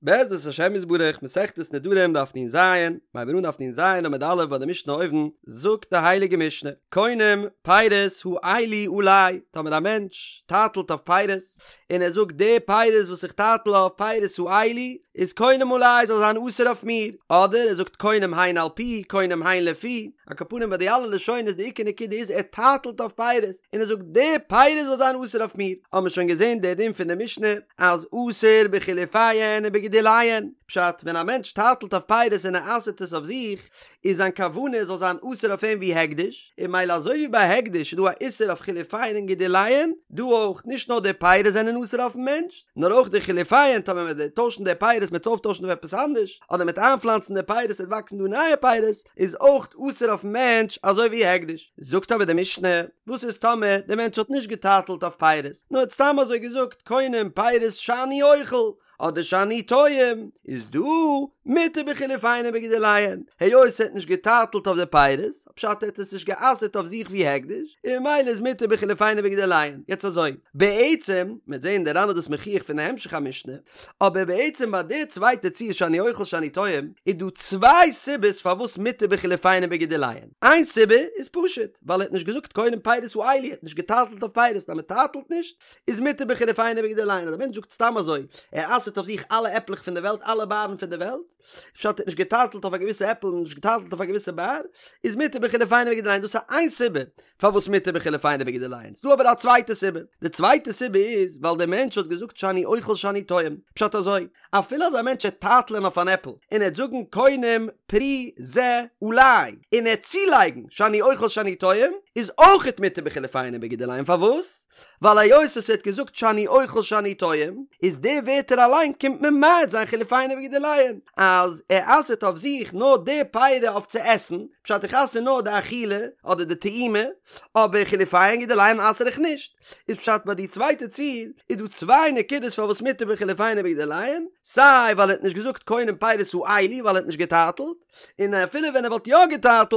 בעזרת השם יתברך, מסכת נדרים דף נ"ז, מ'הייבן אן דף נ"ז עמוד א' ביי די משנה אויבן, זאגט די הייליגע משנה, קונם פירות האלו עלי, טאמער א מענטש טייטלט אויף פירות, און ער זאגט די פירות וואס איך טייטל אויף פירות האלו, איז קונם עלי זאל זיין אסור אויף מיר, אדער ער זאגט קונם הן על פי, קונם הן לפי, על כל פנים ביי די אלע לשונות די עיקר נקודה איז ער טייטלט אויף פירות, און ער זאגט די פירות זאל זיין אסור אויף מיר, האבן מיר שוין געזען די דין פון די משנה, אז אסור בחילופיהן ובגידוליהן, פשט, ווען א מענטש טייטלט אויף פירות און ער אסר'ט עס אויף זיך, איז זיין כוונה עס זאל זיין אסור אויף אים ווי הקדש, און ממילא אזוי ווי ביי הקדש איז דא א איסור אויף חילופיהן און גידוליהן, דא אויך, נישט נאר די פירות זענען אסור אויפן מענטש, נאר אויך די חילופיהן, טאמער מען וועט טוישן די פירות מ'עט עס אויפטוישן אויף עפעס אנדערש, אדער מ'עט איינפלאנצן די פירות עס וועט וואקסן דא נייע פירות, איז אויך אסור אויפן מענטש אזוי ווי הקדש. זאגט אבער די משנה, וואס איז טאמער די מענטש האט נישט געטייטלט אויף פירות, נאר האט סתם אזוי געזאגט קונם פירות שאני אוכל, אדער שאני טועם, איז דא מותר בחילופיהן ובגידוליהן, היות ער האט נישט געטייטלט אויף די פירות, פשט ער האט עס נישט גע'אסר'ט אויף זיך ווי הקדש, און ממילא איז מותר בחילופיהן ובגידוליהן. יעצט אזוי, בעצם, מ'וועט זעהן די ר"ן איז דאס מוכיח פון די המשך המשנה, אבער בעצם ביי די צווייטע ציור שאני אוכל שאני טועם, איז דא צוויי סיבות פארוואס מותר בחילופיהן ובגידוליהן. איין סיבה איז פשוט, ווייל ער האט נישט געזאגט קונם פירות האלו, ער האט נישט געטייטלט אויף פירות, אז מען טייטלט נישט, איז מותר בחילופיהן ובגידוליהן, אז א מענטש זאגט סתם אזוי, ער אסר'ט אויף זיך אלע עפלעך פון די וועלט, אלע בארן פון די וועלט, פשט ער האט נישט געטייטלט אויף א געוויסע עפל און נישט געטייטלט אויף א געוויסע באר, איז מותר בחילופיהן ובגידוליהן, דאס איז איין סיבה פארוואס מותר בחילופיהן ובגידוליהן. ס'דא אבער א צווייטע סיבה, די צווייטע סיבה איז ווייל דער מענטש האט געזאגט שאני אוכל שאני טועם, פשט אזוי, אפילו אז א מענטש עט טייטלען אויף אן עפל און ער עט זאגן קונם פרי זה עלי און ער עט צולייגן שאני אוכל שאני טועם איז אויכעט מותר בחילופיהן ובגידוליהן פארוואס? ווייל היות עס האט געזאגט שאני אוכל שאני טועם איז די ווערטער אליין קומט ממעט זיין חילופיהן ובגידוליהן אז ער אסר'ט אויף זיך נאר די פירי אויף צו עסן פשט איך אסר נאר די אכילה אדער די טעימה אבער חילופיהן גידוליהן אסר איך נישט. איז פשט ביי די צווייטע ציור איז דא צוויי נקודות פארוואס מותר בחילופיהן ובגידוליהן, סיי ווייל ער האט נישט געזאגט קונם פירות האלו ווייל ער האט נישט געטייטלט, און אפילו ווען ער וואלט יא געטייטלט,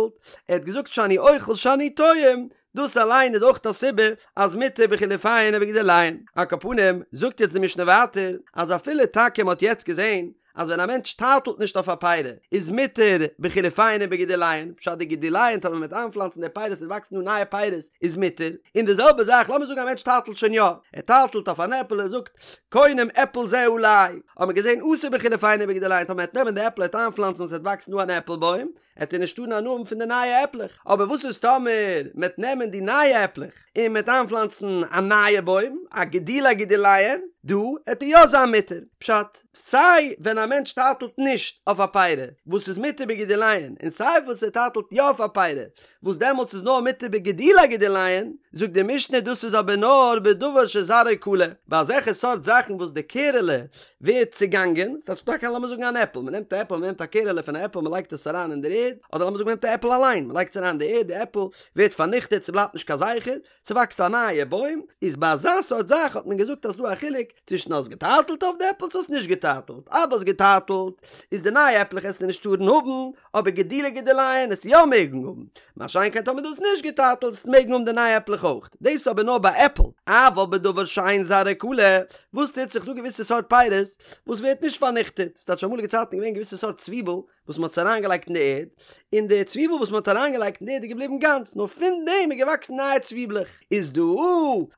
ער האט געזאגט שאני אוכל שאני טועם, דאס אליין איז אויך א סיבה אז מותר בחילופיהן ובגידוליהן. על כל פנים, זאגט יעצט די משנה ווייטער, אז אפילו טאקע מען האט יעצט געזען אז ווען א מענטש טייטלט נישט אויף א פירי איז מותר בחילופיהן ובגידוליהן, פשט די גידוליהן טאמער מ'וועט איינפלאנצן די פירות און וואקסן דא נייע פירות איז מותר, און די זעלבע זאך לאמיר זאגן א מענטש טייטלט שוין יא, ער טייטלט אויף אן עפל ער זאגט קונם עפל זה עלי, האט מען געזען אסור בחילופיהן ובגידוליהן טאמער מ'וועט נעמען די עפל ער וועט איינפלאנצן און ס'וועט וואקסן דא אן עפל בוים, עט ער נישט טארן הנאה האבן פון די נייע עפלעך, אבער וואס איז טאמער מ'עט נעמען די נייע עפלעך און מ'עט איינפלאנצן א נייע בוים, א גידולי גידוליהן, דא עט ער יא זיין מותר, פשט, סיי ווען א מענטש טייטלט נישט אויף א פירי וואס איז מותר בגידוליהן, און סיי וואס ער טייטלט יא אויף א פירי וואס דעמאלטס איז נאר מותר בגידולי גידוליהן, זאגט די משנה דאס איז אבער נאר בדבר שזרעו כלה, ביי אזעלכע סארט זאכן וואס די קערעלע ווערט צעגאנגען, ס'טייטש טאקע לאמיר זאגן אן עפל, מ'נעמט א עפל, מ'נעמט א קערעלע פון א עפל מ'לייגט עס אריין אין דער ערד, אדער לאמיר זאגן מ'נעמט א עפל אליין, מ'לייגט עס אריין אין די ערד, די עפל ווערט פארניכטעט, ס'בלייבט נישט קיין זכר, ס'וואקסט א נייע בוים, איז ביי אזא סארט זאך האט מען געזאגט אז ס'דא א חילוק צווישן האסט געטייטלט אויף די עפל צו האסט נישט געטייטלט, אז דו האסט געטייטלט איז די נייע עפלעך עסטו נישט טארן האבן, אבער גידולי גידוליהן עסטו יא מעגן האבן, מה שאין כן טאמער דו האסט נישט געטייטלט עסטו מעגן האבן די נייע עפלעך אויך, דאס איז אבער נאר ביי עפל, אבל בדבר שאין זרעו כלה, וואס טוט זיך ס'דא געוויסע סארט פירות וואס ווערט נישט פארניכטעט, ס'טייטש אמאליגע צייטן איז געווען געוויסע סארט צוויבל וואס מ'האט עס אריינגעלייגט אין די ערד, און די צוויבל וואס מ'האט אריינגעלייגט אין די ערד איז געבליבן גאנץ, נאר פון דעם איז געוואקסן נייע צוויבלעך, איז דא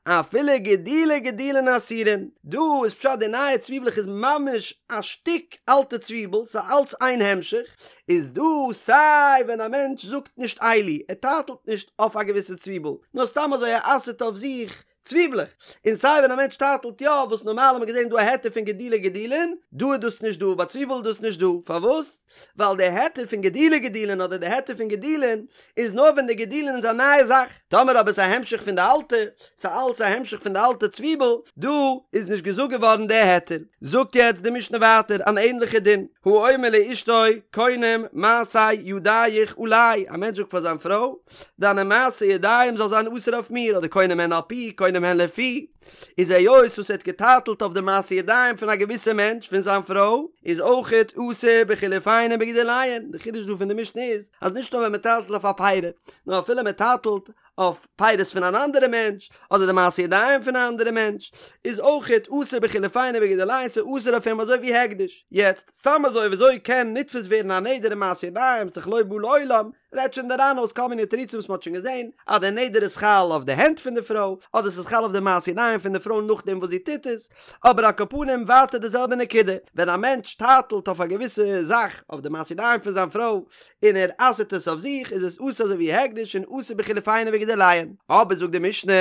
אפילו גידולי גידולין אסורין, דא איז פשט די נייע צוויבלעך איז ממש א שטיק אלטע צוויבל, ס'איז אלץ איין המשך, איז דא סיי ווען א מענטש זאגט נישט אלו, ער טייטלט נישט אויף א געוויסע צוויבל, נאר סתם אזוי ער אסר'ט אויף זיך צוויבלעך, און סיי ווען א מענטש טייטלט יא, וואס נארמאל האט מען געזען דא א היתר פון גידולי גידולין, דא איז דאס נישט דא, ביי צוויבל איז דאס נישט דא, פארוואס? ווייל די היתר פון גידולי גידולין אדער די היתר פון גידולין איז נאר ווען די גידולין איז א נייע זאך, טאמער אבער ס'איז א המשך פון די אלטע, ס'איז אלץ א המשך פון די אלטע צוויבל, דא איז נישט געזאגט געווארן די היתר. זאגט יעצט די משנה ווייטער אן ענליכע דין, האומר לאשתו קונם מעשה ידיך עלי, א מענטש זאגט פאר זיין פרוי, דיינע מעשה ידיים זאל זיין אסור אויף מיר, אדער קונם הן על פי, קונם הן לפי. איז היות וואס ער האט געטייטלט אויף די מעשי ידיים פון א געוויסע מענטש פון זיין פרוי, איז אויכעט אסור בחילופיהן ובגידוליהן, די חידוש דא פון די משנה איז אז נישט נאר ווען מען טייטלט אויף א פרי, נאר אפילו מען טייטלט אויף פירות פון אן אנדערע מענטש, אדער די מעשי ידיים פון א אנדערע מענטש, איז אויכעט אסור בחילופיהן ובגידוליהן, ס'איז אסור אויף אים אזוי ווי הקדש. יעצט, סתם אזוי וויאזוי קען נתפס ווערן א נדר אין מעשי ידיים, ס'דאך לא בא לעולם, רעדט שוין דער ר"ן אויס כל מיני תירוצים וואס מ'האט שוין געזען, אז דער נדר איז חל אויף די הענט פון די פרוי, אדער ס'איז חל אויף די מעשי ידיים פון די פרוי נאכדעם וואס זי טוט עס, אבער על כל פנים ווייטער די זעלבע נקודה, ווען א מענטש טייטלט אויף א געוויסע זאך אויף די מעשי ידיים פון זיין פרוי, און ער אסר'ט עס אויף זיך, איז עס אסור אזוי ווי הקדש און אסור בחילופיהן ובגידוליהן. אבער זאגט די משנה,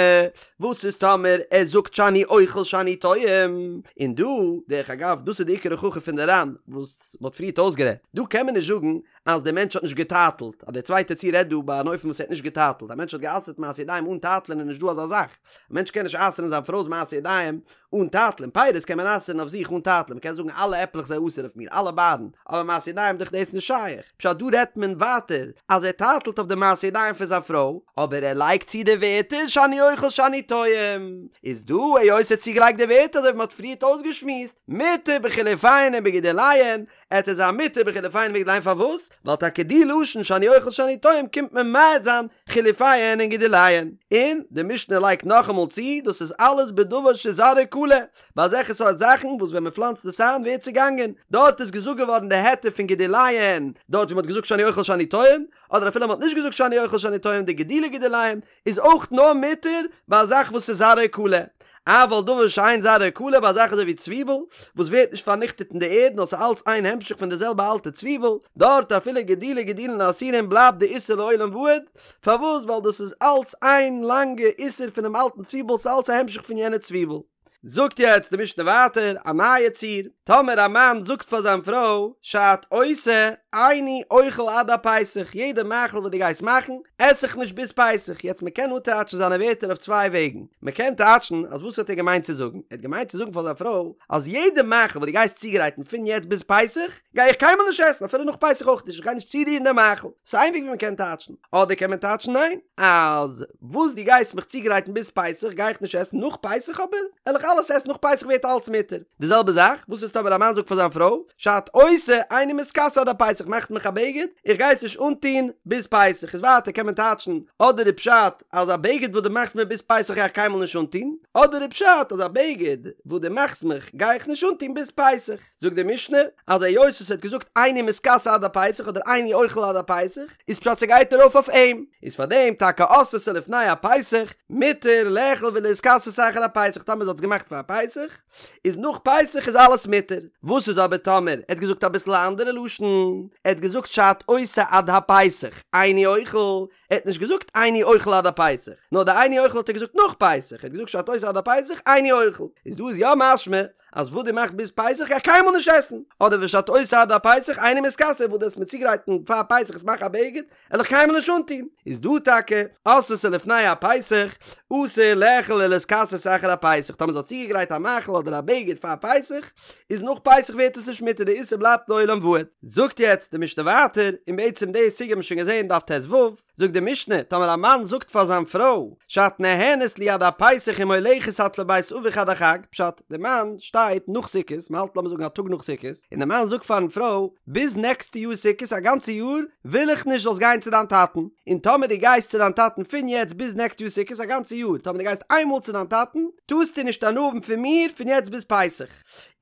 וואס איז טאמער ער זאגט שאני אוכל שאני טועם? און דא, דרך אגב, דאס איז די עיקר הוכחה פון די ר"ן וואס מ'האט פריערט אויסגערעדט, דא קען מען נישט זאגן אז דער מענטש האט נישט געטייטלט, אז דער צווייטער ציור רעדט דא ביי אן אופן וואס ער האט נישט געטייטלט, א מענטש האט גע'אסר'ט מעשי ידיים אן טייטלען איז נישט דא אזא זאך, א מענטש קען נישט אסר'ן זיין פרוי'ס מעשי ידיים אן טייטלען, פירות קען מען אסר'ן אויף זיך אן טייטלען, מען קען זאגן אלע עפלעך זיי אסור אויף מיר, אלע בארן, אבער מעשי ידיים דאך דאס נישט שייך, פשט דא רעדט מען ווייטער אז ער טייטלט אויף די מעשי ידיים פון זיין פרוי, אבער ער לייגט צו די ווערטער שאני אוכל שאני טועם, איז דא היות ער האט צוגעלייגט די ווערטער אזוי ווי מען האט פריערט אויסגעשמועסט, מותר בחילופיהן ובגידוליהן, עט עס זיין מותר בחילופיהן ובגידוליהן פארוואס? ווייל טאקע די לשון שאני אוכל שאני טועם קומט ממעט זיין חילופיהן און גידוליהן. און די משנה לייגט נאכאמאל צו דאס איז אלעס בדבר שזרעו כלה, ביי אזעלכע סארט זאכן וואס ווען מען פלאנצט עס איין ווערט צעגאנגען, דארט איז געזאגט געווארן די היתר פון גידוליהן דארט ווי מען האט געזאגט שאני אוכל שאני טועם, אדער אפילו מען האט נישט געזאגט שאני אוכל שאני טועם די גידולי גידוליהן איז אויך נאר מותר ביי א זאך וואס איז זרעו כלה, אבל דבר שאין זרעו כלה ביי א זאך אזוי ווי צוויבל וואס ווערט נישט פארניכטעט אין די ערד נאר ס'איז אלץ איין המשך פון די זעלבע אלטע צוויבל, דארט אפילו גידולי גידולין אסורים בלייבט די איסור לעולם ועד, פארוואס ווייל דאס איז אלץ איין לאנגע איסור פונעם אלטן צוויבל ס'איז אלץ א המשך פון יענע צוויבל. זאגט יעצט די משנה ווייטער א נייע ציור, טאמער א מאן זאגט פאר זיין פרוי שאת עושה איני אוכל עד הפסח, יעדע מאכל וואס דו גייסט מאכן עס איך נישט ביז פסח, יעצט מען קען אפטייטשן זיינע ווערטער אויף צוויי וועגן, מען קען טייטשן אז וואס האט ער געמיינט צו זאגן, ער האט געמיינט צו זאגן פאר זיין פרוי אז יעדע מאכל וואס דו גייסט צוגרייטן פון יעצט ביז פסח גיי איך קיינמאל נישט עסן אפילו נאך פסח אויך נישט, איך גיי נישט צורירן די מאכל, ס'איז איין וועג ווי מען קען טייטשן, אדער קען מען טייטשן ניין, אז וואס דו גייסט מיך צוגרייטן ביז פסח גיי איך נישט עסן, נאך פסח אבער וועל איך אלעס עסן, נאך פסח ווערט אלץ מותר. די זעלבע זאך, וואס איז טאמער א מאן זאגט פאר זיין פרוי, שאת עושה איני מתכסה עד הפסח מאכסט מיך א בגד, איך גיי עס נישט אנטון ביז פסח, איז ווייטער קען מען טייטשן, אדער איז פשט אז א בגד וואס דו מאכסט מיר ביז פסח גיי איך קיינמאל נישט אנטון, אדער איז פשט אז א בגד וואס דו מאכסט מיך גיי איך נישט אנטון ביז פסח. זאגט די משנה אז היות וואס ער האט געזאגט איני מתכסה עד הפסח אדער איני אוכל עד הפסח איז פשט ס'גייט ארויף אויף אים, איז פאר דעם טאקע עשתה לפני הפסח מותר לאכול ולהתכסות אחר הפסח טאמער זי האט עס געמאכט פאר פסח איז נאך פסח איז אלעס מותר, וואס איז אבער טאמער ער האט געזאגט אביסל א אנדערע לשון ער האט געזאגט שאת עושה עד הפסח איני אוכל ער האט נישט געזאגט איני אוכל עד הפסח נאר די איני אוכל האט ער געזאגט נאך פסח ער האט געזאגט שאת עושה עד הפסח איני אוכל איז דא איז יא משמע אז וואס דו מאכסט ביז פסח גיי איך קיינמאל נישט עסן, אדער ושאת עושה עד הפסח איני מתכסה וואס דו וועסט מיר צוגרייטן פאר פסח עס מאכן א בגד וועל איך קיינמאל נישט אנטון, איז דא טאקע עשתה לפני הפסח אסור לאכול ולהתכסות אחר הפסח, טאמער זי האט צוגעגרייט א מאכל אדער א בגד פאר פסח, איז נאך פסח ווערט עס נישט מותר די איסור בלייבט לעולם ועד. זאגט יעצט די משנה ווייטער, און בעצם די סוגיא האבן מיר שוין געזען דף ט"ו, זאגט די משנה, טאמער א מאן זאגט פאר זיין פרוי, שאת נהנית לי עד הפסח ומולכת את לבית אביך עד החג, פשט, די מאן שטייט נאך סוכות, מען האלט לאמיר זאגן א טאג נאך סוכות, און די מאן זאגט פארן פרוי, ביז נעקסטע יאר סוכות א גאנצע יאר וויל איך נישט זאלסט גיין צו דיין טאטן, און טאמער דו גייסט צו דיין טאטן פון יעצט ביז נעקסט יאר סוכות א גאנצע יאר, טאמער דו גייסט איינמאל צו דיין טאטן, טארסטו נישט הנאה האבן פון מיר פון יעצט ביז פסח.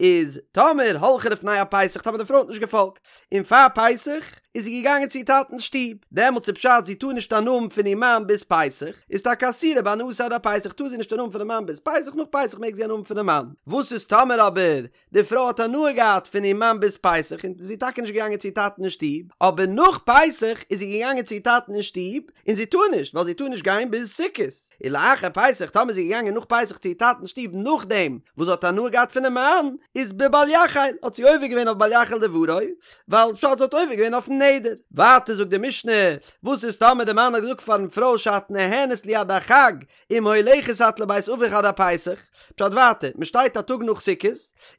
איז טאמער הלכה לפני הפסח, טאמער די פרוי האט נישט געפאלגט, און פאר פסח איז זי געגאנגען צו איר טאטנ'ס שטוב, דעמאלטס איז פשט זי טאר נישט הנאה האבן פון איר מאן ביז פסח, איז טאקע אסורה בהנאתו עד הפסח טאר זי נישט הנאה האבן פונעם מאן ביז פסח, נאך פסח מעג זי הנאה האבן פונעם מאן. וואס איז טאמער אבער די פרוי האט הנאה געהאט פון איר מאן ביז פסח און זי איז טאקע נישט געגאנגען צו איר טאטן אין שטוב, אבער נאך פסח איז זי געגאנגען צו איר טאטן אין שטוב, און זי טאר נישט ווייל זי טאר נישט גיין ביז סוכות. ולאחר פסח טאמער איז זי געגאנגען נאך פסח צו איר טאטנ'ס שטוב נאכדעם וואס זי האט הנאה געהאט פונעם מאן, איז בבל יחל, האט זי עובר געווען אויף בל יחל דברו, ווייל פשט זי האט עובר געווען אויפן נדר. דעם נדר. ווייטער זאגט די משנה, וואס איז טאמער די מאן האט געזאגט פארן פרוי שאת נהנית לי עד החג, אם הולכת את לבית אביך עד הפסח, פשט ווייטער, מען שטייט א טאג נאך סוכות,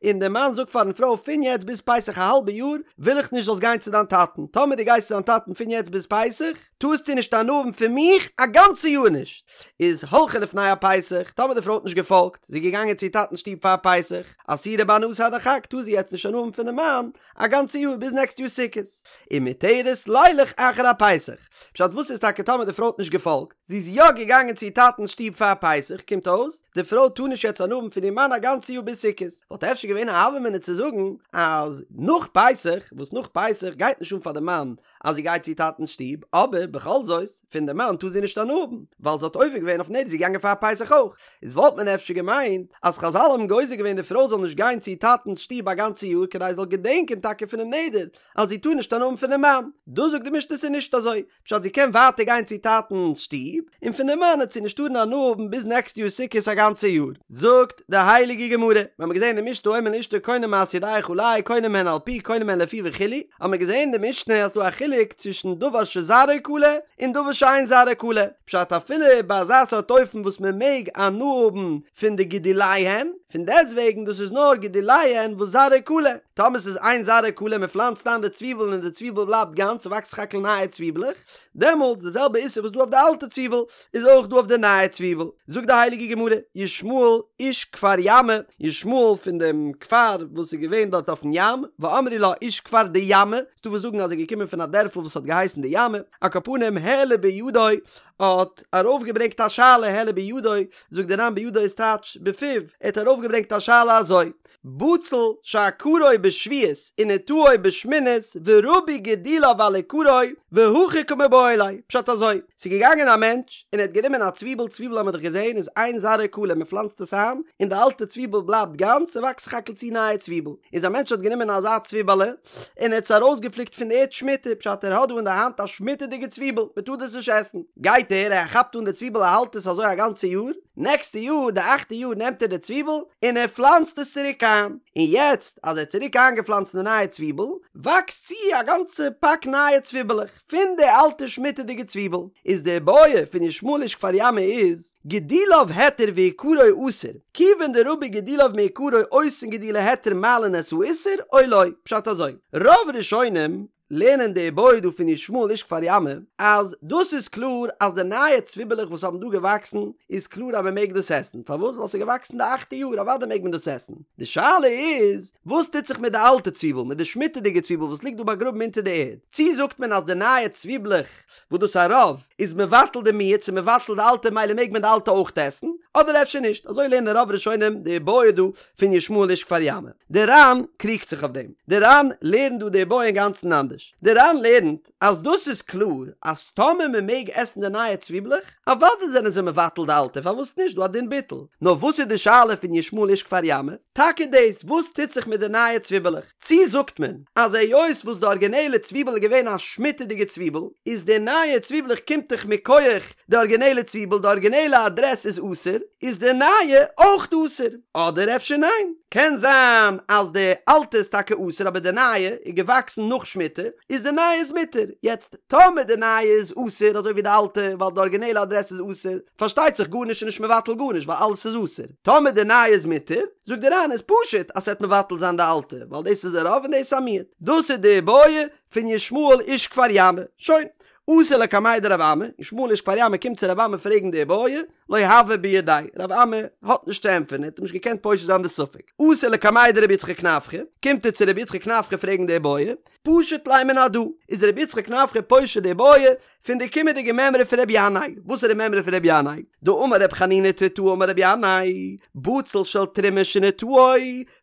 און דער מאן זאגט פארן פרוי פון יעצט ביז פסח א האלבע יאר וויל איך נישט זאלסט גיין צו דיין טאטן, טאמער דו גייסט צו דיין טאטן פון יעצט ביז פסח, טארסטו נישט הנאה האבן פון מיך א גאנצע יאר נישט. איז הלכה לפני הפסח, טאמער די פרוי האט נישט געפאלגט, זי איז געגאנגען צו איר טאטנ'ס שטוב פאר פסח, אסורה בהנאתו עד החג, טאר זי יעצט נישט הנאה האבן פונעם מאן א גאנצע יאר ביז נעקסט יאר סוכות. ומותרת לילך אחר הפסח. פשט וואס איז טאקע טאמער די פרוי האט נישט געפאלגט, זי איז יא געגאנגען צו איר טאטנ'ס שטוב פאר פסח, קומט אויס, די פרוי טאר נישט יעצט הנאה האבן פון איר מאן א גאנצע יאר ביז סוכות. וואלט אפשר געווען א הוה אמינא צו זאגן אז נאך פסח, וואס נאך פסח גייט נישט אן פאר די מאן אז זי גייט צו איר טאטנ'ס שטוב, אבער בכל זאת, פון די מאן טאר זי נישט הנאה האבן, ווייל זי האט עובר געווען אויף נדר, זי איז געגאנגען פאר פסח אויך. איז וואלט מען אפשר געמיינט אז חזל האבן גוזר געווען די פרוי זאל נישט גיין צו איר טאטנ'ס שטוב א גאנצע יאר כדי זי זאל געדענקען טאקע פונעם נדר אז זי טאר נישט הנאה האבן פונעם מאן. דא זאגט די משנה ס'איז נישט אזוי, פשט זי קען ווייטער גיין צו טאטנ'ס שטוב, און פון די מאן וועט זי נישט טארן הנאה האבן ביז נעקסט יאר סוכות א גאנצע יאר. זאגט די הייליגע גמרא, מיר האבן געזען אין די משנה האומר לאשתו קונם מעשה ידיך עלי קונם הן על פי קונם הן לפי וכו', האבן מיר געזען אין די משנה אז ס'דא א חילוק צווישן דבר שזרעו כלה און דבר שאין זרעו כלה, פשט אפילו ביי אזא סארט אופן וואס מען מעג הנאה האבן פון די גידוליהן, פון דעסטוועגן דאס איז נאר גידוליהן וואס זרעו כלה, טאמער ס'איז אין זרעו כלה מען פלאנצט איין די צוויבל און די צוויבל בלייבט גאנץ ס'וואקסט סך הכל נייע צוויבלעך, דעמאלטס די זעלבע איסור וואס דא אויף די אלטע צוויבל איז אויך דא אויף די נייע צוויבל. זאגט די הייליגע גמרא, ישמעאל איש כפר ימא, ישמעאל פון דעם כפר וואס איז געווען דארט אויפן ים, ואמרי לה איש כפר דימא, ס'דא וואס זאגן אז ער איז געקומען פון א דערפל וואס האט געהייסן דימא, על כל פנים העלה בידו האט ארויפגעברענגט א שאלה העלה בידו, זאגט דער ר"ן בידו איז טייטש בפיו, ער האט ארויפגעברענגט א שאלה אזוי, בצל שעקרו בשביעית ונטעו בשמינית ורבו גידוליו על עיקרו והכי קמיבעיא ליה, פשט אזוי, ס'איז געגאנגען א מענטש און ער האט גענומען א צוויבל, צוויבל האמיר דאך געזען איז אין זרעו כלה מען פלאנצט עס איין און די אלטע צוויבל בלייבט גאנץ ס'וואקסט סך הכל צו נייע צוויבל, איז א מענטש האט גענומען אזא צוויבעלע און ער האט עס ארויסגעפליקט פון די ערד שמיטה, פשט ער האט דא אין די האנט א שמיטה'דיגע צוויבל, מען טאר דאס נישט עסן, גייט ער, ער כאפט אן די צוויבל ער האלט עס אזוי א גאנצע יאר, נעקסטע יאר, די אכטע יאר נעמט ער די צוויבל און ער פלאנצט עס צוריק איין, און יעצט אז ער האט צוריק איינגעפלאנצט די נייע צוויבל, וואקסט צו א גאנצע פאק נייע צוויבעלעך פון די אלטע שמיטה'דיגע צוויבל, איז די בעיא פון ישמעאל איש כפר ימא איז, גידוליו היתר ועיקרו אסור, כיוון דרבו גידוליו מעיקרו אותן גידולי היתר מעלין את האיסור או לא, פשט אזוי, רוב ראשונים לערנען די איבעיא דא פון ישמעאל איש כפר ימא, אז דאס איז קלאר אז די נייע צוויבעלעך וואס האבן דא געוואקסן איז קלאר אז מען מעג דאס עסן, פארוואס? ווייל ס'איז געוואקסן די אכטע יאר אוודאי מעג מען דאס עסן, די שאלה איז וואס טוט זיך מיט די אלטע צוויבל, מיט די שמיטה'דיגע צוויבל וואס ליגט דא באגראבן אונטער די ערד, צי זאגט מען אז די נייע צוויבלעך וואס דאס א רוב איז מבטל די מיעוט ס'איז מבטל די אלטע מילא מעג מען די אלטע אויך עסן, אדער אפשר נישט, אזוי לערנען רוב ראשונים די איבעיא דא פון ישמעאל איש כפר ימא. די ר"ן קריגט זיך אויף דעם. די ר"ן לערנט דא די איבעיא אינגאנצן אנדערש. די ר"ן לערנט אז דאס איז קלאר אז טאמער מען מעג עסן די נייע צוויבלעך, אוודאי זענען זיי מבטל די אלטע, פארוואס נישט דא א דין ביטול. נאר וואס איז די שאלה פון ישמעאל איש כפר ימא? טאקע דאס, וואס טוט זיך מיט די נייע צוויבעלעך? צי זאגט מען אז היות וואס די ארגינעלע צוויבל איז געווען א שמיטה'דיגע צוויבל, איז די נייע צוויבלעך קומט דאך מכח די ארגינעלע צוויבל, די ארגינעלע אדרעס איז אסור, איז די נייע אויך אסור? אדער אפשר ניין? קען זיין אז די אלטע איז טאקע אסור אבער די נייע איז געוואקסן נאך שמיטה, איז די נייע איז מותר. יעצט טאמער די נייע איז אסור אזוי ווי די אלטע ווייל די ארגינעלע אדרעס איז אסור, פארשטייט זיך גארנישט איז נישט מבטל גארנישט ווייל אלעס איז אסור. טאמער די נייע איז מותר, זאגט די ר"ן איז פשוט אז ס'וועט מבטל זיין די אלטע, ווייל דאס איז א רוב און דאס איז א מיעוט. דאס איז די איבעיא פון ישמעאל איש כפר ימא. שוין. אתא לקמיה דרב אמי, ישמעאל איש כפר ימא קומט צו רב אמי פרעגן די איבעיא, לא הוה בידיה, רב אמי האט נישט צו ענטפערן, ער האט אים נישט געקענט פושט זיין די ספק. אתא לקמיה דרבי יצחק נפחא, קומט ער צו רבי יצחק נפחא פרעגן די איבעיא, פשט ליה מן הדא, איז רבי יצחק נפחא פושט די איבעיא פון די קומענדיגע מימרא פון רבי ינאי, וואס איז די מימרא פון רבי ינאי? דאמר רבי חנינא תריתאה אמר רבי ינאי, בצל של תרומה שנטעו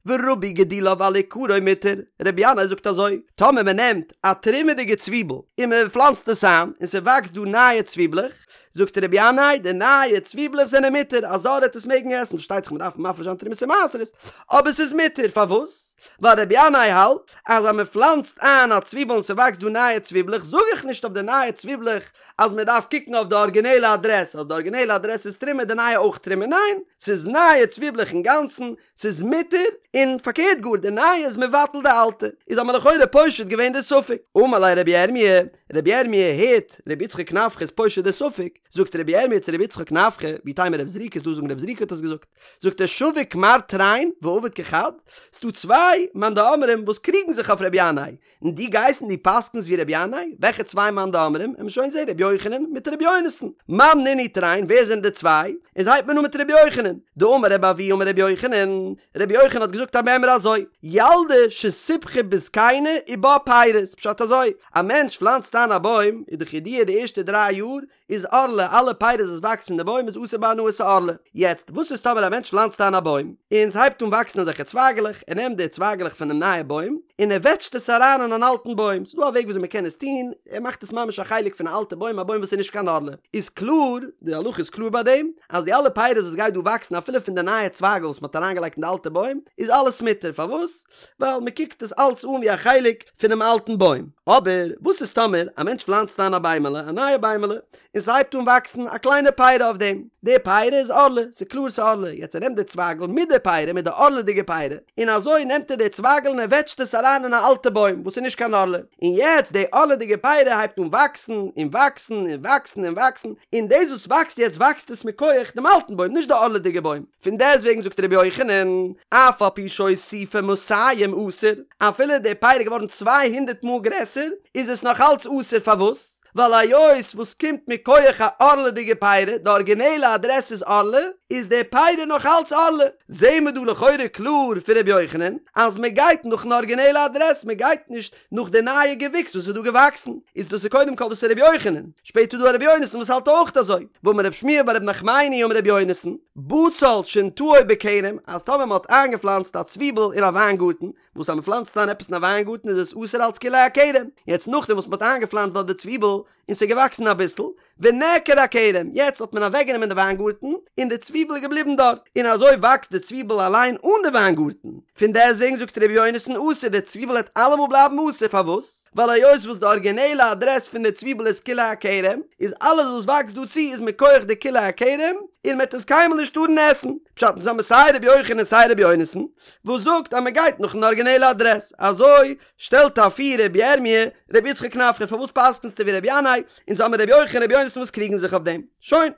ורבו גידוליו על עיקרו מותר, רבי ינאי זאגט אזוי, טאמער מען נעמט א תרומה'דיגע צוויבל און מען פלאנצט עס איין און ס'וואקסט דא נייע צוויבלעך, זאגט רבי ינאי די נייע צוויבלעך זענען מותר, א זר העט עס מעגן עסן, פארשטייט זיך מען דארף מפריש זיין תרומות און מעשרות, אבער ס'איז מותר, פארוואס? ווייל רבי ינאי האלט אז אז מען פלאנצט איין א צוויבל און ס'וואקסט דא נייע צוויבלעך זאג איך נישט אויף די נייע צוויבלעך אז מען דארף קוקן אויף די ארגינעלע אדרעס אז די ארגינעלע אדרעס איז תרומה די נייע אויך תרומה ניין ס'איז נייע צוויבלעך אינגאנצן ס'איז מותר און פארקערט גאר די נייע איז מבטל די אלטע איז האט מען לכאורה פושט געווען די ספק אמר ליה רבי ירמי' רבי ירמי' הערט רבי יצחק נפחא איז פושט די ספק זאגט רבי ירמי' צו רבי יצחק נפחא ואיתימא רב זריקא איז דא זאגן רב זריקא האט עס געזאגט זאגט ער שביק מר תרין ועביד כחד, ס'דא צוויי מאן דאמרים וואס קריגן זיך אויף רבי ינאי, און דו גייסט און דו פסק'נסט ווי רבי ינאי, וועלכע צוויי מאן דאמרים, עמיר שוין זעהן רבי יוחנן מיט רבי יונתן, מאן נינהו תרין ווער זענען די צוויי, איז הייבט מען אן מיט רבי יוחנן, דאמר רבי אבהו אמר רבי יוחנן, רבי יוחנן האט געזאגט א מימרא אזוי, ילדה שסבכה בזקנה ובה פירות, פשט אזוי, א מענטש פלאנצט איין א בוים, איז דאך ידוע די ערשטע דריי יאר איז ערלה, אלע פירות וואס וואקסט פון די בוים איז אסור בהנאה ס'ערלה. יעצט, וואס איז טאמער א מענטש פלאנצט איין א בוים, און ס'הייבט אן וואקסן אזעלכע צווייגעלעך, ער נעמט די צווייגעלעך פונעם נייע בוים, און ער וועטשט עס אריין אין אן אלטן בוים, ס'איז דא א וועג וויאזוי מ'קען עס טון, ער מאכט עס ממש א חלק פון א אלטע בוים, א בוים וואס איז נישט קיין ערלה. איז קלאר, די הלכה איז קלאר ביי דעם, אז די אלע פירות וואס גייט דא וואקסן אפילו פון די נייע צווייגל וואס מ'האט אריינגעלייגט אין די אלטע בוים, איז אלעס מותר, פארוואס? ווייל מ'קוקט עס אלץ אן ווי א חלק פונעם אלטן בוים. אבער וואס איז טאמער א מענטש פלאנצט איין א ביימעלע, א נייע ביימעלע, און ס'הייבט אן וואקסן א קליינע פירא אויף דעם, די פירא איז ערלה, ס'איז קלאר ס'איז ערלה, יעצט ער נעמט די צווייגל מיט די פירא, מיט די ערלה'דיגע פירא, און אזוי נעמט ער די צווייגל און ער וועטשט עס אריין אין א אלטע בוים וואס איז נישט קיין ערלה, און יעצט די ערלה'דיגע פירא הייבט אן וואקסן און וואקסן און וואקסן און וואקסן, און דאס וואס וואקסט יעצט וואקסט עס מכח דעם אלטן בוים, נישט די ערלה'דיגע בוים. פון דעסטוועגן זאגט רבי יוחנן, אף על פי שהוסיפה מאתים אסור, אפילו די פירא איז געווארן צוויי הונדערט מאל גרעסער, איז עס נאך אלץ אסור, פארוואס? ווייל היות וואס קומט מכח א ערלה'דיגע פירא, די ארגינעלע אדרעס איז ערלה, איז די פירא נאך אלץ ערלה. זעהן מיר דא לכאורה קלאר פון רבי יוחנן, אז מען גייט נאכן ארגינעלע אדרעס, מען גייט נישט נאך די נייע געוויקס וואס איז דא געוואקסן, איז דאס איז קודם כל דאס איז רבי יוחנן, שפעטער איז דא א רבי יונתן וואס האלט אויך אזוי, ואמר רב שמואל בר רב נחמני אמר רבי יונתן, בצל שנטעו בכרם, אז טאמער מען האט איינגעפלאנצט א צוויבל אין א וויינגארטן, וואס אז מען פלאנצט איין עפעס אין א וויינגארטן איז עס אסור אלץ כלאי הכרם, יעצט נאכדעם וואס מען האט איינגעפלאנצט דארט די צוויבל, און ס'איז געוואקסן אביסל, ונעקר הכרם, יעצט האט מען אוועקגענומען די וויינגארטן, און די צוויבל איז געבליבן דארט, און אזוי וואקסט די צוויבל אליין אן די וויינגארטן, פון דעסטוועגן זאגט ר' יונתן אסור, די צוויבל העט אלעמאל בלייבן אסור, פארוואס? ווייל היות וואס די ארגינעלע אדרעס פון די צוויבל איז כלאי הכרם, איז אלעס וואס וואקסט דא צו איז מכח די כלאי הכרם, און מען העט עס קיינמאל נישט טארן עסן. פשט אונז האמיר סיי ר' יוחנן און סיי ר' יונתן, וואס זאגט אז מען גייט נאכן ארגינעלע אדרעס, אזוי שטעלט אפיר רבי ירמי' רבי יצחק נפחא פארוואס פסק'נסטו ווי רבי ינאי, אונז האמיר רבי יוחנן רבי יונתן וואס קריגן זיך אויף דעם. שוין.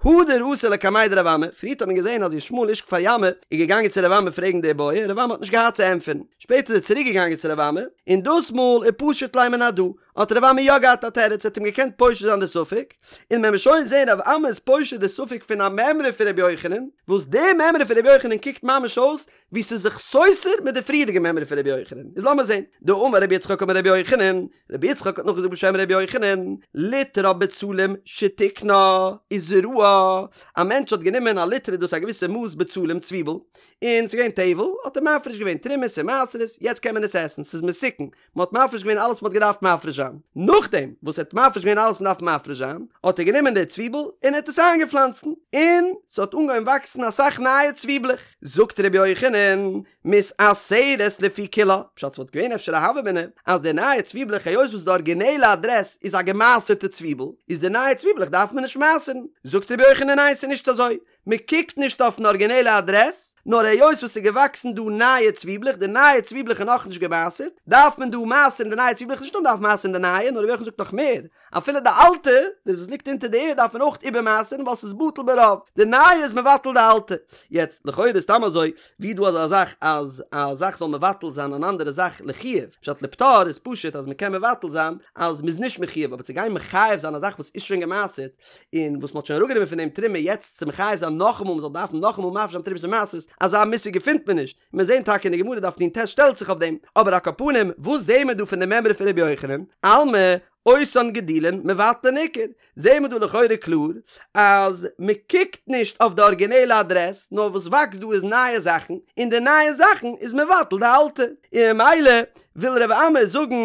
הדר אתא לקמיה דרב אמי, פריערט האט מען געזען אז ישמעאל איש כפר ימא איז געגאנגען צו רב אמי פרעגן די בעיא, רב אמי האט נישט געהאט צו ענטפערן. שפעטער איז ער צוריק געגאנגען צו רב אמי, און דאס מאל ופשט ליה מן הדא, האט רב אמי יא געהאט א תירוץ, ער האט אים געקענט פושט זיין די ספק, און מען וועט שוין זען רב אמי איז פושט די ספק פון א מימרא פון רבי יוחנן, וואס די מימרא פון רבי יוחנן קוקט ממש אויס ווי ס'איז זיך סותר מיט די פריערדיגע מימרא פון רבי יוחנן, איז לאמיר זען, דאמר רבי יצחק אמר רבי יוחנן, רבי יצחק האט נאכגעזאגט בשם רבי יוחנן, ליטרא בצלים שתיקנה וזרעה, א מענטש האט גענומען א ליטרא דאס איז א געוויסע מאס בצלים צוויבל, און ס'איז געווען טבל, האט ער מפריש געווען תרומות און מעשרות, יעצט קען מען עס עסן, ס'איז מתוקן, מען האט מפריש געווען אלעס וואס מען האט געדארפט מפריש זיין, נאכדעם וואס ער האט מפריש געווען אלעס וואס מען דארף מפריש זיין, האט ער גענומען די צוויבל און ער האט עס איינגעפלאנצן, און ס'האט אנגעהויבן וואקסן אסאך נייע צוויבלעך, זאגט ר' יוחנן, מתעשרת לפי כולה, פשט ס'וואלט געווען אפשר א הוה אמינא אז די נייע צוויבלעך היות וואס די ארגינעלע אדרעס איז א געמעשר'טע צוויבל, איז די נייע צוויבלעך דארף מען נישט מעשר'ן, זאגט ר' יוחנן ניין ס'איז נישט אזוי, מען קוקט נישט אויפן ארגינעלע אדרעס, נאר היות וואס ס'איז געוואקסן דא נייע צוויבלעך, די נייע צוויבלעך איז נאכנישט געמעשר'ט, דארף מען דא מעשר'ן די נייע צוויבלעך, נישט נאר מ'דארף מעשר'ן די נייע, נאר רבי יוחנן זאגט נאך מער, אפילו די אלטע, דאס וואס ליגט אונטער די ערד דארף מען אויך איבערמעשר'ן ווייל ס'איז בטל ברוב, די נייע איז מבטל די אלטע. יעצט, לכאורה איז סתם אזוי, ווי איז דא אזא זאך אז א זאך זאל מבטל זיין אן אנדערע זאך לחיוב? פשט לפטור איז פשוט אז מ'קען מבטל זיין אז מ'איז נישט מחויב, אבער צו גיין מחייב זיין א זאך וואס איז שוין געמעשר'ט, און וואס מ'האט שוין אראפגענומען פון דעם תרומה יעצט צו מחייב זיין נאכאמאל מ'זאל דארפן נאכאמאל מפריש זיין תרומות און מעשרות, אזא מושג געפינט מען נישט, מיר זעהן טאקע אין די גמרא דף נ"ט שטעלט זיך אויף דעם, אבער על כל פנים וואס זעהן מיר דא פון די מימרא פון רבי יוחנן? אלמא. אותן גידולין מבטלין עיקר, זעהן מיר דא לכאורה קלאר אז מען קוקט נישט אויף די ארגינעלע אדרעס, נאר וואס וואקסט דא איז נייע זאכן, און די נייע זאכן איז מבטל די אלטע, און ממילא וויל רבי אמי זאגן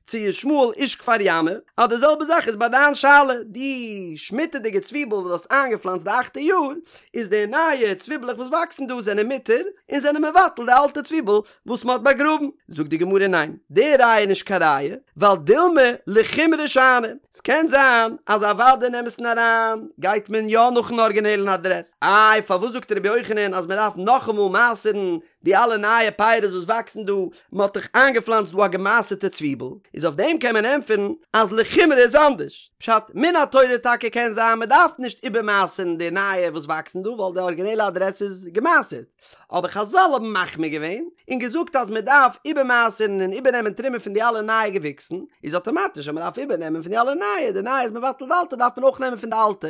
צו ישמעאל איש כפר ימא אז די זעלבע זאך איז ביי דיין שאלה, די שמיטה'דיגע צוויבל וואס דו האסט איינגעפלאנצט די אכטע יאר, איז די נייע צוויבלעך וואס וואקסן דא זענען מותר און זענען מבטל די אלטע צוויבל וואס מען האט באגראבן. זאגט די גמרא ניין, די ראיה איז נישט קיין ראיה, ווייל דילמא לחומרא שאני, ס'קען זיין אז אוודאי אין אמת'ן אריין גייט מען יא נאכן ארגינעלן אדרעס, איי פארוואס זאגט רבי יוחנן אז מען דארף נאכאמאל מעשר'ן די אלע נייע פירות וואס וואקסן דא, מען האט דאך איינגעפלאנצט דא א געמעשר'טע צוויבל, איז אויף דעם קען מען ענטפערן אז לחומרא איז אנדערש, פשט, מן התורה טאקע קען זיין מען דארף נישט איבערמעשר'ן די נייע וואס וואקסן דא ווייל די ארגינעלע אדרעס איז געמעשר'ט, אבער חזל האבן מחמיר געווען און געזאגט אז מען דארף איבערמעשר'ן און איבערנעמען תרומה פון די אלע נייע געוויקסן, איז אטאמאטיש אז מען דארף איבערנעמען פון די אלע נייע, די נייע איז מבטל די אלטע דארף מען אויך נעמען פון די אלטע.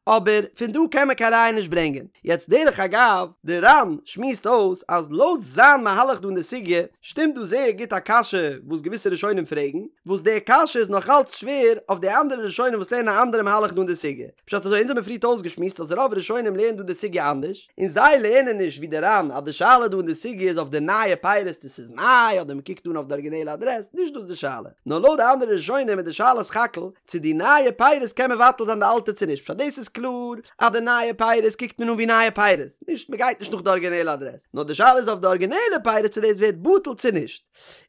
אבער פון דא קען מען קיין ראיה נישט ברענגען. יעצט דרך אגב, די ר"ן שמועסט אויס אז לויט זיין מהלך דא אין די סוגיא, שטימט דא זייער גוט א קשיא וואס געוויסע ראשונים פרעגן, וואס די קשיא איז נאך אלץ שווער אויף די אנדערע ראשונים וואס לערנען א אנדערע מהלך דא אין די סוגיא. פשט אזוי, אונז האבן פריערט אויסגעשמועסט אז רוב ראשונים לערנען דא די סוגיא אנדערש, און זיי לערנען נישט ווי די ר"ן אז די שאלה דא אין די סוגיא איז אויף די נייע פירות צו ס'איז ניי אדער מ'קוקט אן אויף די ארגינעלע אדרעס, נישט דאס די שאלה. נאר לויט די אנדערע ראשונים איז די שאלה סך הכל צו די נייע פירות קען מבטל זיין די אלטע צו נישט, פשט דאס איז קלאר אז די נייע פירות קוקט מען אן ווי נייע פירות, נישט מען גייט נישט נאך די ארגינעלע אדרעס, נאר די שאלה איז אויף די ארגינעלע פירות צו דאס ווערט בטל צו נישט.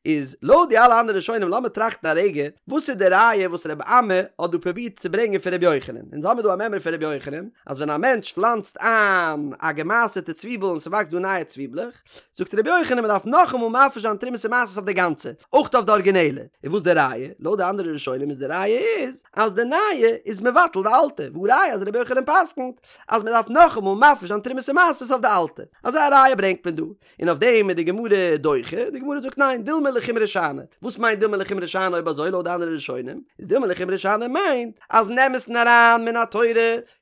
איז לויט די אלע אנדערע ראשונים לאמיר טראכטן א רגע, וואס איז די ראיה וואס רבי אמי האט דא פרובירט צו ברענגען פון רבי יוחנן? אונז האמיר דא א מימרא פון רבי יוחנן אז ווען א מענטש פלאנצט איין א געמעשר'טע צוויבל און ס'וואקסט דא נייע צוויבלעך, זאגט רבי יוחנן מען דארף נאכאמאל מפריש זיין תרומות ומעשרות אויף די גאנצע, אויך אויף די ארגינעלע, און וואס די ראיה? לויט די אנדערע ראשונים איז די ראיה איז אז די נייע איז מבטל די אלטע, והא ראיה אז רבי יוחנן פסק'נט אז מען דארף נאכאמאל מפריש זיין תרומות ומעשרות אויף די אלטע, אזא ראיה ברענגט מען דא, און אויף דעם איז די גמרא דוחה, די גמרא זאגט ניין, דילמא לחומרא שאני, וואס מיינט דילמא לחומרא שאני אויב אזוי לויט די אנדערע ראשונים, איז דילמא לחומרא שאני מיינט אז אין אמת'ן אריין מן התורה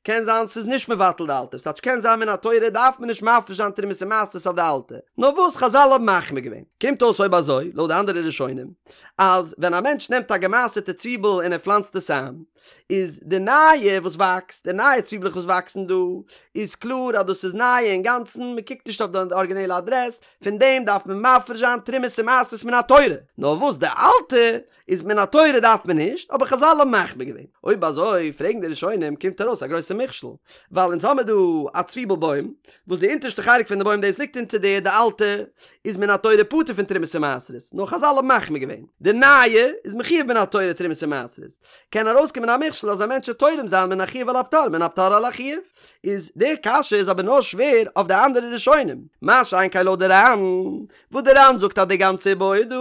קען זיין ס'איז נישט מבטל די אלטע, ס'טייטש קען זיין מן התורה דארף מען נישט מפריש זיין תרומות ומעשרות אויף די אלטע, נאר וואס חזל האבן מחמיר געווען. קומט אויס אויב אזוי, לויט די אנדערע ראשונים, אז ווען א מענטש נעמט א געמעשר'טע צוויבל און ער פלאנצט עס איין, איז די נייע וואס וואקסט, די נייע צוויבלעך וואס וואקסן דא, איז קלאר אז דאס איז נייע אינגאנצן, מען קוקט נישט אויף די ארגינעלע אדרעס, פון דעם דארף מען מפריש זיין תרומות ומעשרות מן התורה, נאר וואס די אלטע איז מן התורה דארף מען נישט, אבער חזל האבן מחמיר געווען. אויב אזוי פרעגן די ראשונים קומט ארויס א גרויסע מכשול, ווייל אונז האמיר דא א צוויבל בוים, וואס די אונטערשטע חלק פון די בוים דאס ליגט אונטער די די אלטע איז מן התורה פטור פון תרומות ומעשרות, נאר חזל האבן מחמיר געווען, די נייע איז מחויב מן התורה תרומות ומעשרות, קען ארויסקומען א מכשול אז א מענטש וועט תורם זיין מן החיוב על הפטור מן הפטור על החיוב, איז די קשיא איז אבער נאר שווער אויף די אנדערע ראשונים, מה שאין כן לויט די ר"ן, וואס די ר"ן זאגט אז די גאנצע איבעיא דא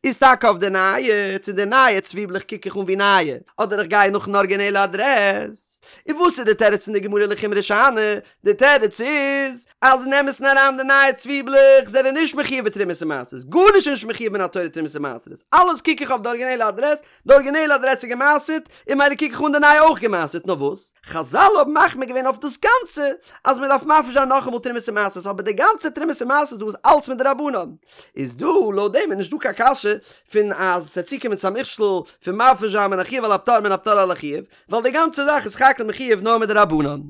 איז טאקע אויף די נייע, צו די נייע צוויבלעך קוק איך אן ווי נייע, אדער איך גיי נאכן ארגינעלע אדרעס. און וואס איז די תירוץ פון די גמרא לחומרא שאני? די תירוץ איז אז אין אמת'ן אריין די נייע צוויבלעך זענען נישט מחויב בתרומות ומעשרות, גארנישט איז נישט מחויב מן התורה תרומות ומעשרות, אלעס קוק איך אויף די ארגינעלע אדרעס, די ארגינעלע אדרעס איז גע'מעשר'ט, און ממילא קוק איך אן די נייע אויך גע'מעשר'ט, נאר וואס? חזל האבן מחמיר געווען אויף דאס גאנצע אז מען דארף מפריש זיין נאכאמאל תרומות ומעשרות, אבער די גאנצע תרומות ומעשרות דא איז אלץ מדרבנן, איז דא לויט דעם איז נישט דא קיין קשיא פון אז ס'וועט צוקומען צו א מכשול פון מפריש זיין מן החיוב על הפטור מן הפטור על החיוב, ווייל די גאנצע זאך איז סך הכל מחויב נאר מדרבנן.